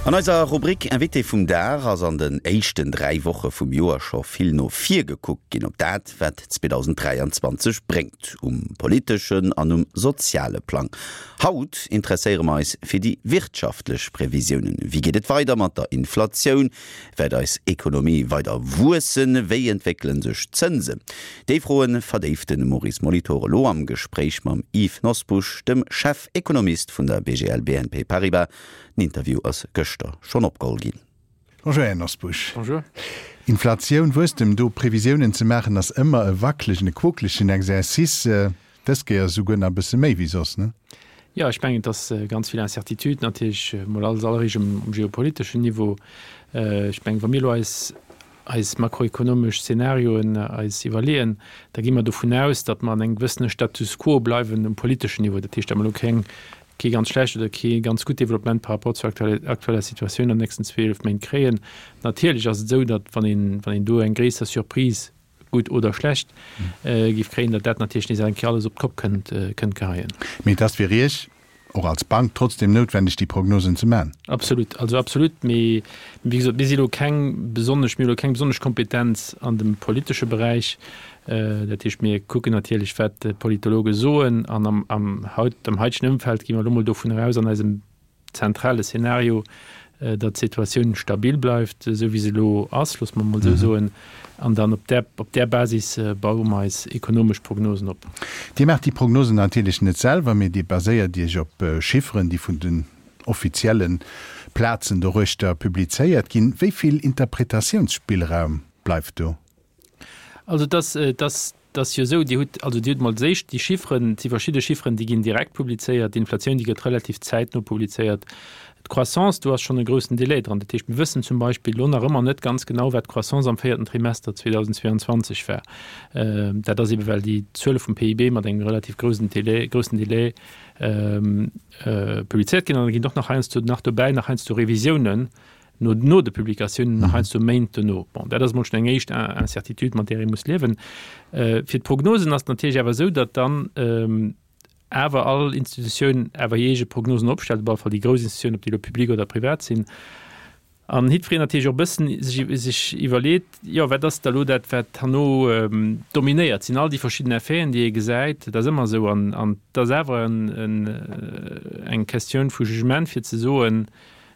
An eiser Rubrik Invité vum Dag ass an den éischten 3 Woche vum Joer scho vill no vir gekuckt ginn op dat, wat 2023 bréngt, um politeschen an um soziale Plang. Haut interesséiere mer eis fir déi wirtschaftlech Previsiounen. Wéi geet et weider mat der Inflatioun? Wäert eis Ekonomie weider wuessen? Wéi entwéckele sech d'Zënsen? Déi Froe verdéift de Maurice Molitor elo am Gespréich mam Yves Nosbusch, dem Chefekonomist vun der BGL BNP Paribas. Den Interview ass gëschter schonn opgeholl ginn. Bonjour Här Nosbusch. Bonjour. Inflatioun, Wuesstem, do Previsiounen ze maachen ass ëmmer e wacklegen, e quokelegen Exercice. Dës Kéier esouguer nach e bësse méi wéi soss, ne? Jo, ech mengen, et ass ganz vill Incertitude natierlech, mol als alleréischt um geopoliteschen Niveau. Ech mengen, wa mir elo eis eis makroekonomesch Szenarioen eis iwwerleeën, da gi mer dovun aus, datt mer an engem gewëssene Status quo bleiwen um politeschen Niveau. Dat heescht, datt mer elo keng, kee ganz schlecht oder kee ganz gutt Developpement par rapport zur aktueller Situatioun an den nächsten 12 Méint kréien. Natierlech ass et esou, datt wann een, wann een do eng gréisser Surprise, gutt oder schlecht, géif kréien, datt dat natierlech nees eng Kéier alles op d'Kopp kënnt, kënnt geheien. Mee et ass fir Iech och als Bank trotzdem noutwendeg, déi Prognosen ze man. Absolut, also absolut. Mee wéi gesot, mir si elo keng besonnesch, mir hu elo keng besonnesch Kompetenz an dem politesche Beräich. Dat heescht, mir kucken natierlech, wat d'Politologe soen an am, am haut, am haitegen Ëmfeld gi mer elo mol dovun eraus an eisem zentrale Szenario, datt d'Situatioun stabil bleift, esou wéi se elo ass, loosse mer emol esou soen, an dann op där, op där Basis baue mer eis ekonomesch Prognosen op. Dir maacht déi Prognosen natierlech net selwer, mee Dir baséiert Iech op Chifferen, déi vun den offizielle Plazen doruechter publizéiert ginn. Wéi vill Interpretatiounsspillraum bleift do? Also et ass, et ass Et ass jo esou, Dir hutt, also Dir hutt emol d'éischt déi Chifferen, et si verschidde Chifferen, déi ginn direkt publizéiert, d'Inflatioun, déi gëtt relativ zäitno publizéiert, d'Croissance, do ass schonn e groussen Delai dran. Dat heescht, mir wëssen zum Beispill elo nach ëmmer net ganz genau, wat d'Croissance am véierten Trimester 2022 war. Dat ass eebe well déi Zuele vum PIB mat engem relativ groussen Delai, groussen Delai publizéiert ginn. An da ginn och nach heiansdo nach dobäi nach heiansdo Revisiounen no, no de Publikatiounen, nach heiansdo Méint dono. Bon, dat ass emol schonn eng éischt Incertitude, mat där ee muss liewen. Fir d'Prognosen ass et natierlech awer esou, datt dann awer all Institutioun awer hir eege Prognosen opstellt, op alle Fall déi grouss Institutiounen, ob déi elo public oder privat sinn. An jiddwereen natierlech och e bëssen sech, sech iwwerleet, jo, wat ass da elo dat, wat herno dominéiert? Sinn all déi verschidden Effeten, déi ee gesäit, dat ass ëmmer esou. An, an et ass awer en, en, eng Questioun vu Jugement, fir ze soen,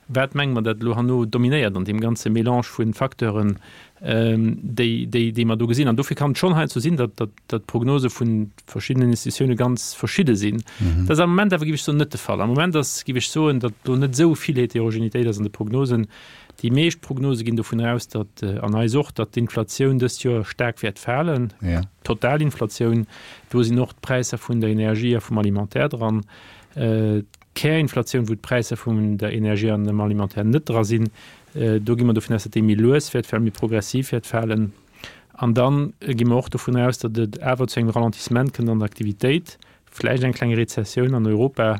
Wat menge mer, dat elo herno dominéiert an deem ganze Mélange vu Facteuren, déi, déi, déi mer do gesinn? An dofir kann et schonn heiansdo sinn, datt, datt, datt d'Prognose vu verschiddenen Institutioune ganz verschidde sinn. Dat ass am Moment awer, géif ech soen, net de Fall. Am Moment ass, géif ech soen, datt do net esou vill Heterogenitéit ass an de Prognosen. Déi meescht Prognose ginn dovun aus, datt, an eis och, datt d'Inflatioun dëst Joer staark wäert falen, d'Totalinflatioun. Do sinn och d'Präisser vun der Energie a vum Alimentaire dran. D'Kärinflatioun, wou d'Präisser vun der Energie an dem Alimentaire net dra sinn, do gi mer dovun aus, datt déi méi lues wäert falen, méi progressiv wäert falen. An da gi mer och dovun aus, datt et awer zu engem Ralentissement kënnt an der Aktivitéit, vläicht eng kleng Rezessioun an Europa.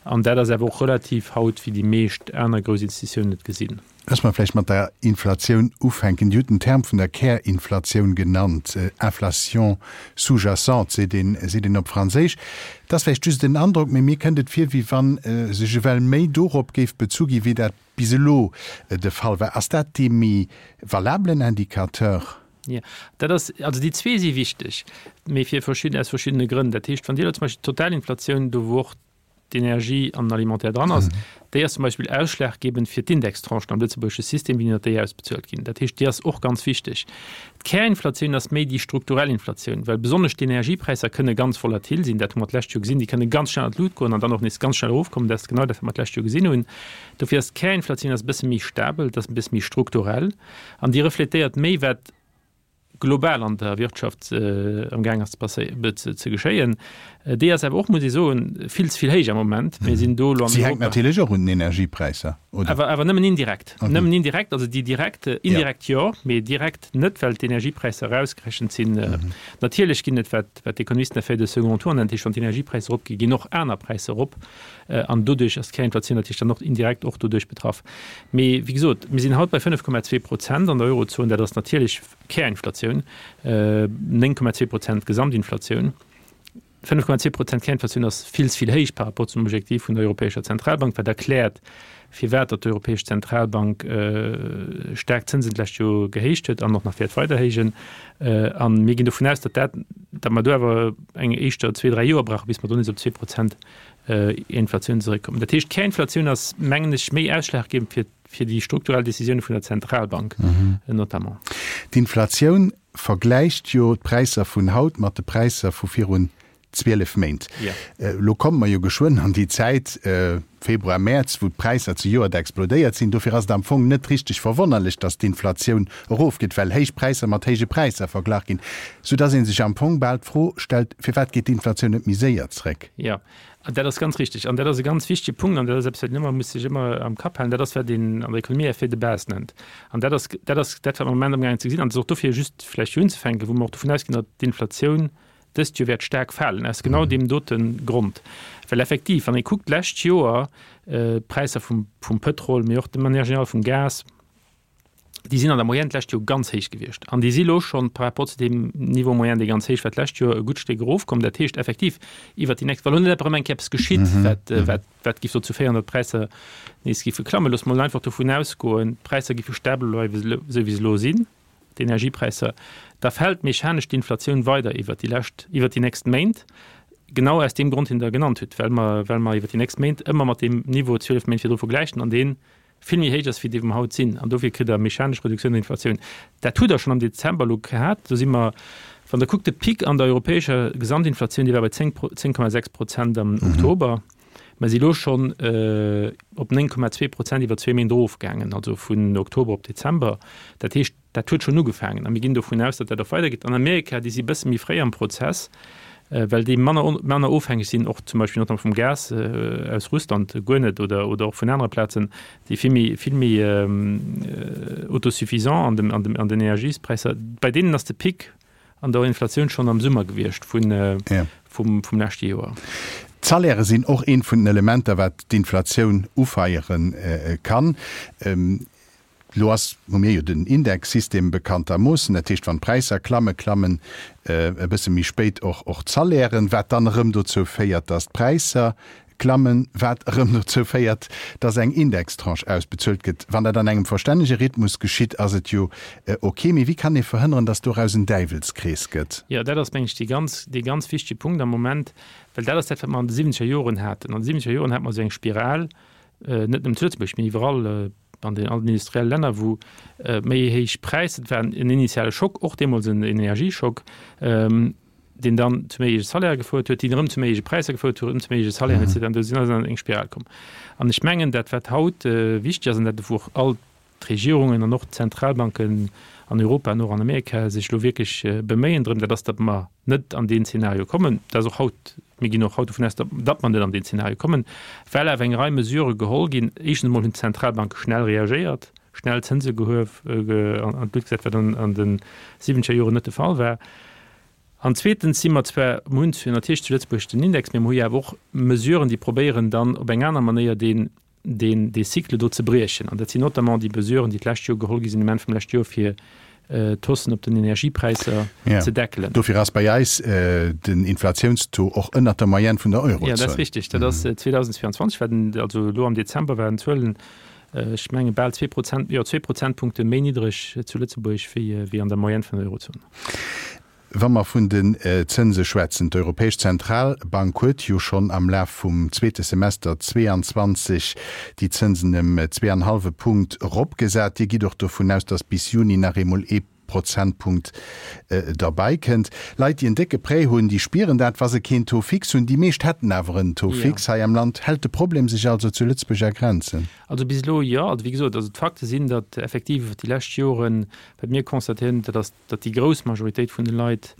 An dat ass awer och relativ haut, wéi déi meescht aner grouss Institutiounen et gesinn. Loosse mer vläicht mat der Inflatioun ufänken. Dir hutt den Term vun der Kärinflatioun genannt, Inflation sous-jacente seet een, seet een op Franséisch. Et ass vläicht just en Androck, mee mir kënnt et vir, wéi wa sech ewell méi dorop géif bezu gi wéi dat bis elo de Fall war. Ass dat dee méi valabelen Indicateur? Jo, dat ass, also déi zwee si wichteg, mee fir verschidden, aus verschiddene Grënn. Dat heescht, wann Dir elo zum Beispill d'Totalinflatioun, do wou och d'Energie an den Alimentaire dran ass, déi ass zum Beispill ausschlaggebend fir d'Indextranchen am lëtzebuergesche System, wéi déi ausbezuelt ginn. Dat heescht, déi ass och ganz wichteg. D'Kärinflatioun ass méi déi strukturell Inflatioun, well besonnesch d'Energiepräisser kënne ganz volatil sinn. Dat hu mer d'lescht Joer gesinn. Déi kënne ganz schnell an d'Lut goen an dann och nees ganz schnell erofkommen. Dat ass genau dat, wat mer d'lescht Joer gesinn hunn. Dofir ass d'Kärinflatioun ass e bësse méi stabel, dat ass e bësse méi strukturell an déi refletéiert méi, wat global an der Wirtschaft am Gaang ass ze geschéien, déi ass awer och, muss ee soen, vill ze vill héich am Moment. Mir sinn do elo an Europa. Si hänkt natierlech och un den Energiepräisser, oder? Awer, awer nëmmen indirekt. Nëmmen indirekt, also déi direkt, indirekt jo, mee direkt net, well d'Energiepräisser erausgerechent sinn. Natierlech ginn et, wat, wat d'Ekonomisten Effet de second tour nennen, dat heescht, wann d'Energiepräisser eropginn, ginn och aner Präisser erop. An doduerch ass d'Kärinflatioun natierlech dann och indirekt och doduerch betraff. Mee wéi gesot, mir sinn haut bei 5,2 Prozent an der Eurozon. Dat ass natierlech Kärinflatioun, 9,2 Prozent Gesamtinflatioun. 5,2 Prozent Kärinflatioun ass vill ze vill héich par rapport zum Objektiv vun der Europäescher Zentralbank, wat erkläert, firwat datt d'Europäesch Zentralbank staark d'Zënsen d'lescht Joer gehéicht huet an och nach wäert weider héijen. A mir ginn dovun aus, datt dat, datt mer do awer eng éischter zwee, dräi Joer brauchen, bis mer do nees op 2 Prozent Inflatioun zeréckkommen. Dat heescht, d'Kärinflatioun ass, mengen ech, méi ausschlaggebend fir, fir déi strukturell Décisioune vun der Zentralbank notamment. D'Inflatioun vergläicht jo d'Präisser vun haut mat de Präisser vu virun 12 Méint. Elo komme mer jo geschwënn an déi Zäit, Februar, Mäerz, wou d'Präisser zejoert explodéiert sinn. Dofir ass et am Fong net richteg verwonnerlech, datt d'Inflatioun erofgeet, well héich Präisser mat héije Präisser verglach ginn, soudatt ee sech am Fong bal d'Fro stellt, Firwat geet d'Inflatioun net méi séier zréck? Jo, dat ass ganz richtig. An dat ass e ganz wichtege Punkt an dat ass eppes, wat een ëmmer muss sech ëmmer am Kapp halen. Dat ass, wat een an der Ekonomie Effet de base nennt. An dat ass, dat ass dat, wat mer am Moment amgaangen ze gesinn. An et ass och dofir just vläicht fir unzefänken, wou mer och dovun ausginn, datt d'Inflatioun dëst Joer wäert staark falen, aus genau deem dote Grond. Well effektiv, wann ee kuckt d'lescht Joer, d'Präisser vum, vum Pëtrol, mee och de manière générale vum Gas, déi sinn an der Moyenne d'lescht Joer ganz héich gewiescht. An déi si lo schonn par rapport zu deem Niveau moyen, dee ganz héich war d'lescht Joer, e gutt Stéck erofkomm. Dat heescht effektiv iwwert déi nächst, wa lo net erëm eng Kéier eppes geschitt, wat, wat, wat géif dozou féieren, datt d'Präisser nees géife klammen. Loosse mer mol einfach dovun ausgoen, d'Präisser géife stabel bleiwen, esou wéi se elo sinn, d'Energiepräisser, da fält mechanesch d'Inflatioun weider iwwert déi lescht, iwwert déi nächst Méint, genau aus deem Grond, deen Der genannt hutt, well mer, well mer iwwert déi nächst Méint ëmmer mat deem Niveau 12 Méint virdru vergläichen an deen vill méi héich ass wéi déi wou mer haut sinn, an dofir kritt Der mechanesch Reduktioun der Inflatioun. Dat hutt Der schonn am Dezember elo gehat. Do si mer, wann Der kuckt, de Pic an der europäescher Gesamtinflatioun, dee war bei 10, 10,6 Prozent am Oktober. Mer si elo schonn op 9,2 Prozent iwwer zwee Méint erofgaangen, also vun Oktober op Dezember. Dat heescht, Dat huet schonn ugefaangen a mir ginn dovun aus, datt dat och weidergeet. An Amerika, déi si e bësse méi fréi am Prozess, well déi manner, manner ofhängeg sinn, och zum Beispill notamment vum Gas aus Russland, guer net, oder, oder och vun anere Plazen, déi vill méi, vill méi autosuffisant an dem, an dem, an den Energiespräisser. Bei deenen ass de Pic an der Inflatioun schonn am Summer gewiescht vun, vum, vum leschte Joer. D'Salairë sinn och eent vun den Elementer, wat d'Inflatioun ufeiere kann. Elo ass, hu mir jo den Indexsystem bekanntermoossen, dat heescht, wann d'Präisser klammen, klammen e bësse méi spéit och och d'Salairen, wat dann erëm dozou féiert, datt d'Präisser klammen, wat erëm dozou féiert, datt eng Indextranche ausbezuelt gëtt. Wann dat an engem verstännege Rhythmus geschitt, ass et jo ok. Mee wéi kann ee verhënneren, datt doraus en Däiwelskrees gëtt? Jo, dat ass, meng ech, dee ganz, dee ganz wichtege Punkt am Moment, well dat ass dat, wat mer an de siwwenzeger Joren haten. An de siwwenzeger Joren hate mer esou eng Spiral, net nëmmen zu Lëtzebuerg, mee iwwerall, an den allen industrielle Länner, wou méi héich Präisser, et war en initiale Schock, och deemools en Energieschock, deen dann zu méi héije Salairë gefouert huet, déi erëm zu méi héije Präisser gefouert huet, erëm zu méi héije Salairen, et cetera. An do sinn ass an eng Spiral komm. An ech mengen, dat wat haut wichteg ass an dat wou och all d'Regierungen an och d'Zentralbanken an Europa an och an Amerika sech elo wierklech beméien drëm, dat ass, datt mer net an deen Zeenario kommen. Dat ass och haut, mir ginn och haut dovun aus, datt mer net an deen Zeenario kommen, well awer eng Rei Mesurë geholl ginn. Éischtens emol hunn d'Zentralbanke schnell reagéiert, schnell Zënse gehuef, an d'Luucht gesat, wat an de siwwenzeger Joren net de Fall war. An zweetens si mer zwar, mer hunn natierlech zu Lëtzebuerg den Index, mee mer hu jo awer och Mesuren, déi probéieren dann op eng aner Manéier deen deen dee Cycle do ze briechen. An dat sinn notamment déi Mesuren, déi d'lescht Joer geholl gi sinn, um Enn vum leschte Joer, fir d'Haussen op den Energiepräisser ze deckelen. Dofir ass bei eis den Inflatiounstaux och ënnert der Moyenne vun der Eurozon. Jo, dat ass richtig. Dat ass 2022 war den, also elo am Dezember waren d'Zuelen, ech menge bal 2 Prozent, jo, zwee Prozentpunkte méi niddreg zu Lëtzebuerg wéi an der Moyenne vun der Eurozon. Wa mer vun den Zënse schwätzen, d'Europäesch Zentralbank huet jo schonn am Laf vum zweete Semester 22 déi Zënsen ëm zweeanhallwe Punkt eropgesat. Dir gitt och dovun aus, datt bis Juni nach eemol ee Prozentpunkt derbäi kënnt. Leit, déi en décke Prêt hunn, déi spieren dat, wa se keen Taux fixe hunn. Déi meescht hätten awer en Taux fixe hei am Land. Hält de Problem sech also zu Lëtzebuerg a Grenzen? Also bis elo jo. Also wéi gesot, also d'Fakte sinn, datt effektiv iwwer déi lescht Joren, wat mir constatéieren, dat ass, datt déi grouss Majoritéit vun de Leit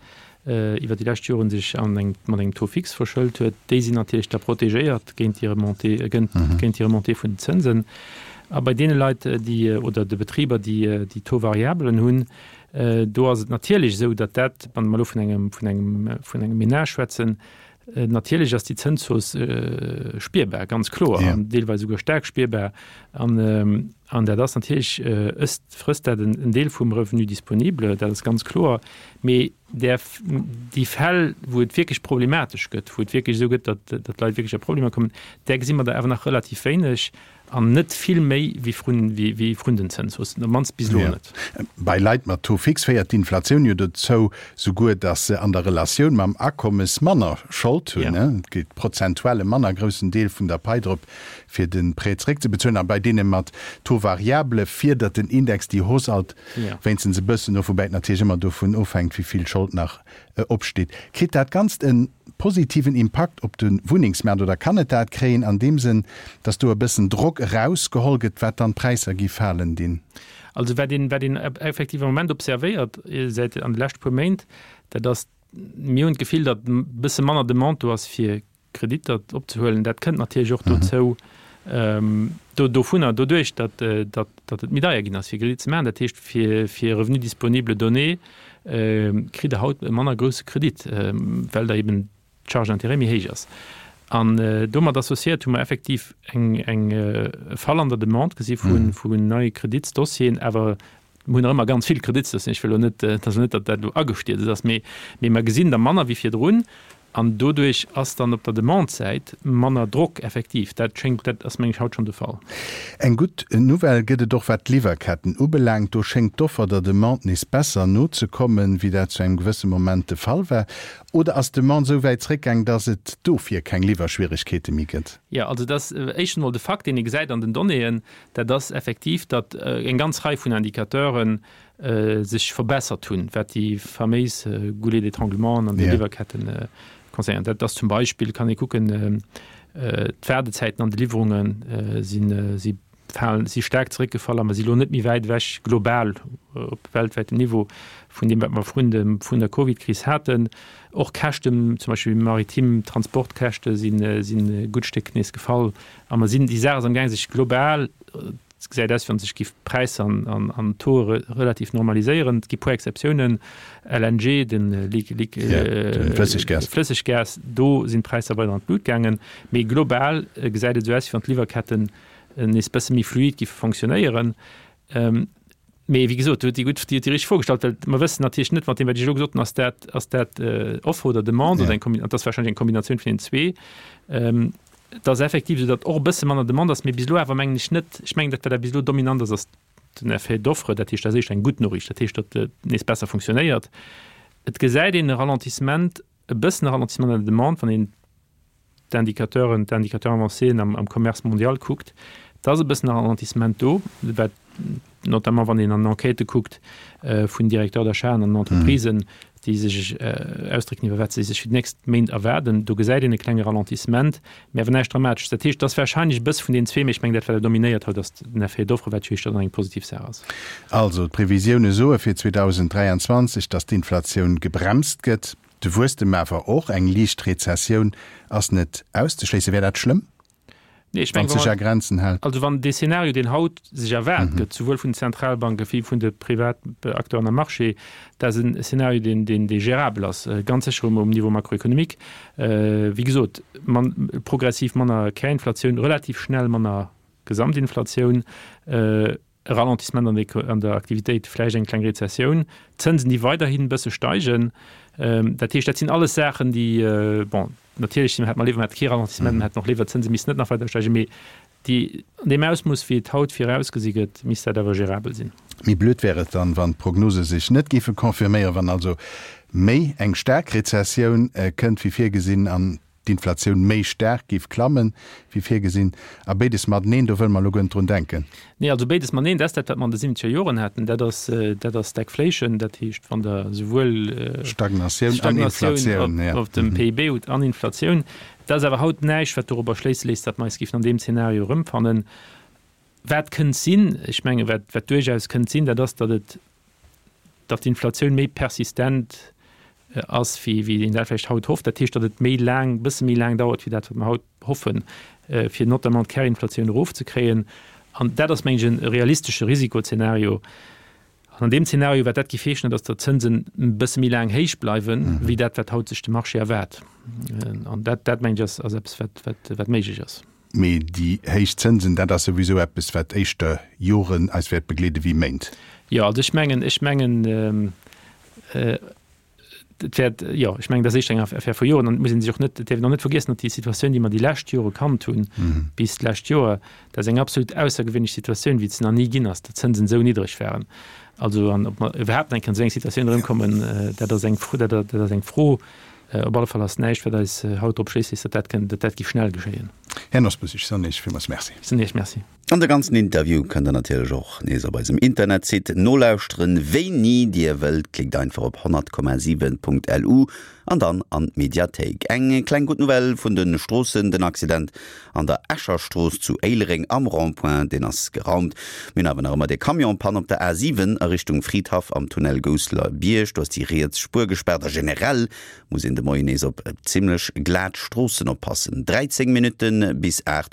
iwwer déi lescht Joren sech an eng, mat engem Taux fixe verschëlt huet, déi sinn natierlech da protegéiert géint déi Remontée, géint, géint déi Remontée vun den Zënsen. A bei deene Leit, déi, oder de Betriber, déi, déi Taux variablen hunn, do ass et natierlech esou, datt dat, wann mer elo vun engem, vun engem, vun engem Ménage schwätzen, natierlech ass déi Zënshausse spierbar, ganz kloer, an deelweis esouguer staark spierbar. An. An dat ass natierlech, ësst, frësst dat en Deel vum Revenu disponible, dat ass ganz kloer. Mee där, déi Fäll, wou et wierklech problematesch gëtt, wou et wierklech esou gëtt, datt, datt d'Leit wierklech a Problemer kommen, där gesi mer der awer nach relativ wéineg an net vill méi wéi vrun, wéi, wéi vrun den Zënshaussen, op d'mannst bis elo net. Bei Leit mat Taux fixe féiert d'Inflatioun jo dozou souguer, datt se an der Relatioun mam Akommes manner Schold hunn. Et geet prozentuell e manner groussen Deel vun der Pai drop, fir de Prêt zeréckzebezuelen. A bei deene mat Taux variable fiedert den Index déi Hausse alt wéinstens e bëssen of, woubäi et natierlech ëmmer dovun ofhänkt, wéi vill Schold nach opsteet. Kritt dat Ganzt e positiven Impakt op de Wunnengsmaart oder kann et dat kréien an deem Sënn, datt do e bëssen Drock erausgeholl gëtt, wat dann d'Präisser gi falen dinn? Also wat een, wat een effektiv am Moment observéiert säit an de leschte puer Méint, dat ass, mir hunn d'Gefill, datt e bësse manner Demande do ass fir Kreditter opzehuelen. Dat kënnt natierlech och dozou, do dovunner, doduerch, datt, datt, datt et méi deier ginn ass, fir Kredit ze maachen. Dat heescht, fir, fir Revenu disponible donné kritt Der haut e manner grousse Kredit, well der eben d'Charge d'intérêt méi héich ass. An domat associéiert hu mer effektiv eng, eng, e Fall an der Demande gesi vu, vun neie Kreditsdossieren, awer Mir hunn nach ëmmer ganz vill Kreditsdossieren. Ech wëll elo net, et ass elo net, datt dat elo agestierzt ass, mee, mee mer gesinn der manner wéi virdrun. An doduerch ass dann op der Demande-Säit manner Drock effektiv. Dat schéngt, dat ass meng ech haut schonn de Fall. Eng gutt Nouvelle gëtt et och wat d'Liwwerketten ubelaangt. Do schéngt d'Offer der Demande nees besser nozekommen, wéi dat zu engem gewësse Moment de Fall war. Oder ass d'Demande esou wäit zréckgaang, datt et dofir keng Liwwerschwieregkeete méi gëtt? Jo, also dat ass éischtens emol de Fakt, deen ee gesäit an den Donnéeën, Dat ass effektiv, datt eng ganz Rei vun Indicateure sech verbessert hunn, wat déi faméis Goulets d'étranglement an de Liwwerketten concernéiert. Dat ass zum Beispill, kann ee kucken, d'Waardezäiten an de Liwwerunge sinn, si falen, si staark zeréckgefall a mer si lo net méi wäit ewech global op weltwäitem Niveau vun deem, wat mer vrun dem, vrun der Covidkris haten. Och Käschten, zum Beispill maritim Transportkäschte sinn, sinn e gutt Stéck nees gefall. A mer sinn, déi Saach ass amgaang sech global, et gesäit aus wéi wann sech géif d'Präisser an an d'Tauxe relativ normaliséieren. Et gi puer Exceptiounen, LNG, de Flësseggas, do sinn d'Präisser weider an d'Lut gaangen. Mee global gesäit et esou aus, wéi wann d'Liwwerketten nees bësse méi fluid géife fonctionnéieren. Mee wéi gesot, Dir hutt déi gutt, Dir hutt déi richteg Fro gestallt, well mer wëssen natierlech net, mat deem wat ech elo gesot hunn, ass dat, ass dat Offre oder Demande oder eng Kombi-, an et ass warscheinlech eng Kombinatioun vun deenen zwee. Et ass effektiv esou, datt och e bësse manner Demande ass, mee bis elo awer mengen ech net, ech mengen dat wat awer bis elo dominant ass, ass den Effet d'offre. Dat heescht, dat ass éischter eng gutt Noriicht, dat heescht, datt et nees besser funktionéiert. Et gesäit een e Ralentissement, e bëssen e Ralentissement an der Demande, wann een d'Indicateuren, d'Indicateurs avancéen am, am Commerce mondial kuckt, da ass e bëssen e Ralentissement do, wat notamment wann een an Enquêtë kuckt vun Directeurs d'achat an Entreprisen, déi sech ausdrécken iwwer wat se sech fir déi nächst Méint erwaarden, do gesäit een e klenge Ralentissement, mä awer näischt Dramatesches. Dat heescht, et ass warscheinlech e bësse vun deenen zwee, mä ech mengen dat wat awer dominéiert haut ass den Effet d'offre, wat jo éischter dann eng positiv Saach ass. Also d'Previsioune soe fir 2023, datt d'Inflatioun gebremst gëtt. De Wuesstem awer och, eng liicht Rezessioun ass net auszeschléissen. Wär dat schlëmm, Nee, ech wann mengen, et sech a Grenzen hält? Also wann dee Szenario, deen haut sech erwaart gëtt, souwuel vun den Zentralbanke wéi vun de Privatacteuren am Marché, dat ass en Szenario, deen, deen, dee gérabel ass, ganz sécher um, um Niveau macroéconomique. Wéi gesot, man, progressiv manner Kärinflatioun, relativ schnell manner Gesamtinflatioun, e Ralentissement an der an der Aktivitéit, vläicht eng kleng Rezessioun, d'Zënsen, déi weiderhin e bësse steigen. Dat heescht, dat sinn alles Saachen, déi, bon, natierlech hätt mer léiwer, mer hätte kee Ralentissement, mer hätten och léiwer, d'Zënse missten net nach weider steigen, mee déi, an deem Ausmooss, wéi et haut virausgesi gëtt, misst dat awer gérabel sinn. Méi blöd wär et dann, wann d'Prognose sech net géife confirméieren, wann also méi eng staark Rezessioun kënnt wéi virgesinn an d'Inflatioun méi staark géif klammen, wéi virgesinn, a béides mateneen, do wëlle mer elo guer net drun denken. Nee, also béides mateneen, dat ass dat, wat mer an de siwwenzeger Joren haten, dat ass, dat ass Stagflation, dat heescht, wann Der souwuel Stagnatioun an Inflatioun, op, op dem PIB hutt an Inflatioun. Dat ass awer haut näischt, wat dorobber schléisse léisst, datt mer eis géifen an deem Zeenario erëmfannen. Wat kënnt sinn, ech menge wat, wat duerchaus kënnt sinn, dat ass, datt et, datt d'Inflatioun méi persistent ass, wéi, wéi een dat vläicht haut hofft. Dat heescht, datt et méi laang, e bësse méi laang dauert, wéi dat, wat mer haut hoffen, fir notamment d'Kärinflatioun erofzekréien. An dat ass, mengen ech, e realistesche Risikozenario. An an deem Zeenario, wat dat géif heeschen, dat ass, datt d'Zënsen e bësse méi laang héich bleiwen, wéi dat, wat haut sech de Marché erwaart. An dat, dat mengen ech, ass, ass eppes, wat, wat, wat méiglech ass. Mee déi héich Zënsen, dat ass souwisou eppes, wat éischter Joren eis wäert begleede wéi Méint. Jo, also ech mengen, ech mengen, et wäert, jo, ech mengen, dat ass éischter eng Affär vu Joren. An et muss ee sech och net, et däerf een och net vergiessen, datt déi Situatioun, déi mer déi lescht Jore kannt hunn, bis d'lescht Joer, dat ass eng absolut aussergewéinlech Situatioun, wéi et se nach ni ginn ass, datt d'Zënsen esou niddreg waren. Also, an ob mer iwwerhaapt nach eng Kéier an esou eng Situatioun erëmkommen, dat ass eng Fro, dat ass eng Fro. Op alle Fall ass näischt, wat eis haut drop schléisst, datt dat kënnt, datt dat géif schnell geschéien. Här Nosbusch, ech soen Iech villmools Merci. Ech soen Iech Merci. An de ganzen Interview kënnt der natierlech och nees op eisem Internetsite nolauschteren, wéini dir wëllt. Klickt einfach op 100,7.lu an dann an d'Mediathéik. Eng kleng gutt Nouvelle vun de Stroossen, Den Accident an der Escher Strooss zu Éilereng am Rond-point, deen ass geraumt. Mir hunn awer nach ëmmer dee Camion-Panne op der A7 a Richtung Fridhaff am Tunnel Gousseler Bierg. Do ass déi riets Spuer gespaart a generell muss een de Moien nees op zimmlech glat Stroossen oppassen. 13 Minutte bis 8.